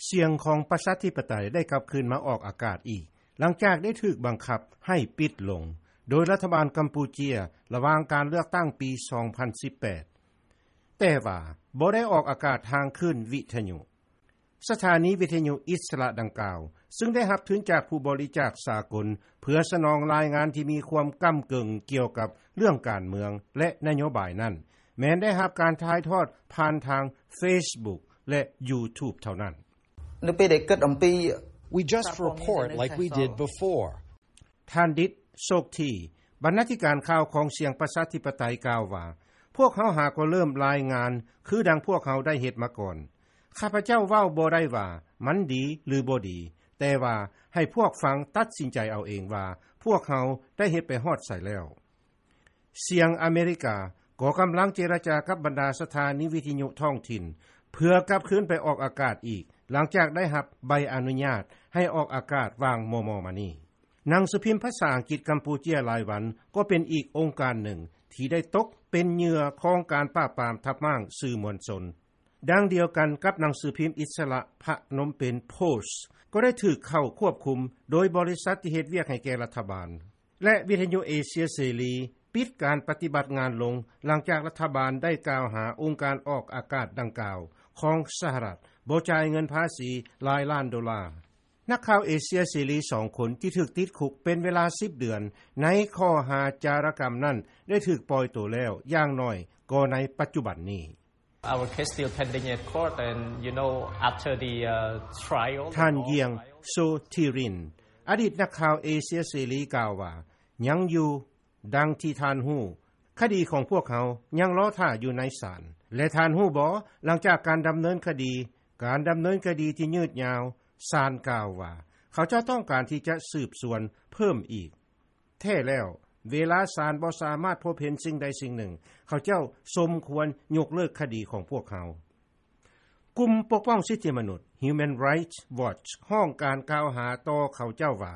ສຽງຂອງປະຊາທິປະໄຕໄດ້ກັບຄືນມາອອກອາກາດອີກ ຫຼັງຈາກໄດ້ຖືກບັງຄັບໃຫ້ປິດລົງ ໂດຍລັດຖະບານກຳປູເຈຍ ລະຫວ່າງການເລືອກຕັ້ງປີ 2018, ແຕ່ວ່າບໍ່ໄດ້ອອກອາກາດທາງຄື້ນວິທະຍຸ. ສະຖານີວິທະຍຸອິດສະຫຼະດັ່ງກ່າວ ຊຶ່ງໄດ້ຮັບທຶນຈາກຜູ້ບໍລິຈາກສາກົນ ເພື່ອສະໜອງລາຍງານທີ່ມີຄວາມກ້ຳເກິ່ງກ່ຽວກັບເລື່ອງການເມືອງ ແລະ ນະໂຍບາຍນັ້ນ ແມ່ນໄດ້ຮັບການຖ່າຍທອດຜ່ານທາງ Facebook ແລະ YouTube ເທົ່ານັ້ນ. ໃນປີໃດເກີດອຳປີ We just report like we did before. ທ່ານ ດິດ ໂຊກທີ ບັນນາທິການຂ່າວຂອງສຽງປະຊາທິປະໄຕ ກ່າວວ່າ ພວກເຮົາຫາກໍເລີ່ມລາຍງານ ຄືດັ່ງພວກເຮົາໄດ້ເຮັດມາກ່ອນ. ຂ້າພະເຈົ້າເວົ້າບໍ່ໄດ້ວ່າມັນດີ ຫຼື ບໍ່ດີ, ແຕ່ວ່າໃຫ້ພວກຟັງຕັດສິນໃຈເອົາເອງວ່າ ພວກເຮົາໄດ້ເຮັດໄປຮອດໃສແລ້ວ. ສຽງອາເມລິກາກໍກຳລັງເຈລະຈາກັບບັນດາສະຖານີວິທະຍຸທ້ອງຖິ່ນ ເພື່ອກັບຄືນໄປອອກອາກາດອີກ ຫຼັງຈາກໄດ້ຮັບໃບອະນຸຍາດໃຫ້ອອກອາກາດຫວ່າງມໍ່ໆມານີ້. ໜັງສືພິມພາສາອັງກິດກຳປູເຈຍລາຍວັນ ກໍເປັນອີກອົງການໜຶ່ງທີ່ໄດ້ຕົກເປັນເຫຍື່ອຂອງການປາບປາມທັບມ້າງສື່ມວນຊົນ. ດັ່ງດຽວກັນກັບໜັງສືພິມອິດສະຫຼະ ພະນົມເປັນ Post ກໍໄດ້ຖືກເຂົ້າຄວບຄຸມໂດຍບໍລິສັດທີ່ເຮັດວຽກໃຫ້ແກ່ລັດຖະບານ ແລະ ວິທະຍຸເອເຊຍເສລີ ປິດການປະຕິບັດງານລົງ ຫຼັງຈາກລັດຖະບານໄດ້ກ່າວຫາອົງການອອກອາກາດດັ່ງກ່າວຂອງສະຫະລັດ ບໍ່ຈ່າຍເງິນພາສີຫຼາຍລ້ານໂດລາ. ນັກຂ່າວເອເຊຍເສລີສອງຄົນທີ່ຖືກຕິດຄຸກເປັນເວລາສິບເດືອນ ໃນຂໍ້ຫາຈາລະກຳນັ້ນ ໄດ້ຖືກປ່ອຍໂຕແລ້ວ ຢ່າງໜ້ອຍກໍໃນປັດຈຸບັນນີ້. Our case still pending at court and you know after the uh, trial. ທ່ານ ຢຽງ ໂຊທີຣິນ ອະດີດນັກຂ່າວເອເຊຍເສລີ ກ່າວວ່າ ຍັງຢູ່. ດັ່ງທີ່ທ່ານຮູ້, ຄະດີຂອງພວກເຮົາຍັງລໍຖ້າຢູ່ໃນສານ. ແລະ ທ່ານຮູ້ບໍ່, ຫຼັງຈາກການດຳເນີນຄະດີ, ການດຳເນີນຄະດີທີ່ຍືດຍາວ, ສານກ່າວວ່າ ເຂົາເຈົ້າຕ້ອງການທີ່ຈະສືບສວນເພີ່ມອີກ. ແທ້ແລ້ວ, ເວລາສານບໍ່ສາມາດພົບເຫັນສິ່ງໃດສິ່ງໜຶ່ງ, ເຂົາເຈົ້າສົມຄວນຍົກເລີກຄະດີຂອງພວກເຮົາ. ກຸ່ມປົກປ້ອງສິດທິມະນຸດ Human Rights Watch ຮ້ອງການກ່າວຫາຕໍ່ເຂົາເຈົ້າວ່າ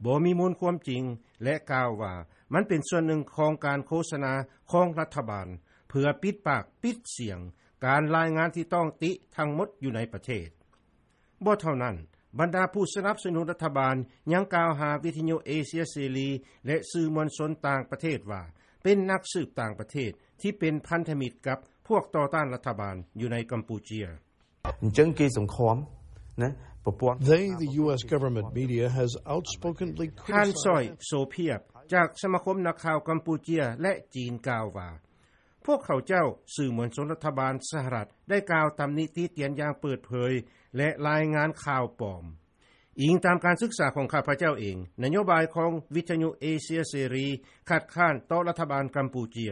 ບໍ່ມີມູນຄວາມຈິງ ແລະ ກ່າວວ່າມັນເປັນສ່ວນໜຶ່ງຂອງການໂຄສະນາຂອງລັດຖະບານ ເພື່ອປິດປາກປິດສຽງການລາຍງານທີ່ຕ້ອງຕິທັງໝົດຢູ່ໃນປະເທດ. ບໍ່ເທົ່ານັ້ນ, ບັນດາຜູ້ສະໜັບສະໜູນລັດຖະບານຍັງກ່າວຫາວິທະຍຸເອເຊຍເສລີ ແລະ ສື່ມວນຊົນຕ່າງປະເທດວ່າ ເປັນນັກສືບຕ່າງປະເທດທີ່ເປັນພັນທະມິດກັບພວກຕໍ່ຕ້ານລັດຖະບານຢູ່ໃນກຳປູເຈຍ. ເຈີງເກສົງຄວາມນະ ປະປວງ They the US government media has outspokenly ທ່ານ ຊອຍ ໂຊພຽບ ຈາກສະມາຄົມນັກຂ່າວກຳປູເຈຍ ແລະ ຈີນ ກ່າວວ່າ ພວກເຂົາເຈົ້າ, ສື່ມວນຊົນລັດຖະບານສະຫະລັດ ໄດ້ກ່າວຕຳນິຕິຕຽນຢ່າງເປີດເຜີຍ ແລະ ລາຍງານຂ່າວປອມ. ອີງຕາມການສຶກສາຂອງຂ້າພະເຈົ້າເອງ, ນະໂຍບາຍຂອງວິທະຍຸເອເຊຍເສລີ ຄັດຄ້ານຕໍ່ລັດຖະບານກຳປູເຈຍ.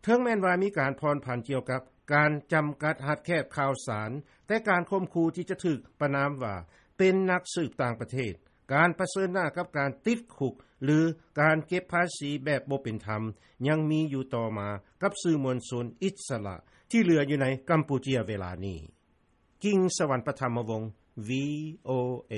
ເຖິງແມ່ນວ່າມີການຜ່ອນຜັນກ່ຽວກັບການຈຳກັດຮັດແຄບຂ່າວສານ, ແຕ່ການຂົ່ມຂູ່ທີ່ຈະຖືກປະນາມວ່າເປັນນັກສືບຕ່າງປະເທດ, ການປະເຊີນໜ້າກັບການຕິດຄຸກ ຫຼື ການເກັບພາສີແບບບໍ່ເປັນທຳ ຍັງມີຢູ່ຕໍ່ມາກັບສື່ມວນຊົນອິດສະຫຼະທີ່ເຫຼືອຢູ່ໃນກຳປູເຈຍເວລານີ້. ກິງສະຫວັນ ປະທຳມະວົງ ວີໂອເອ.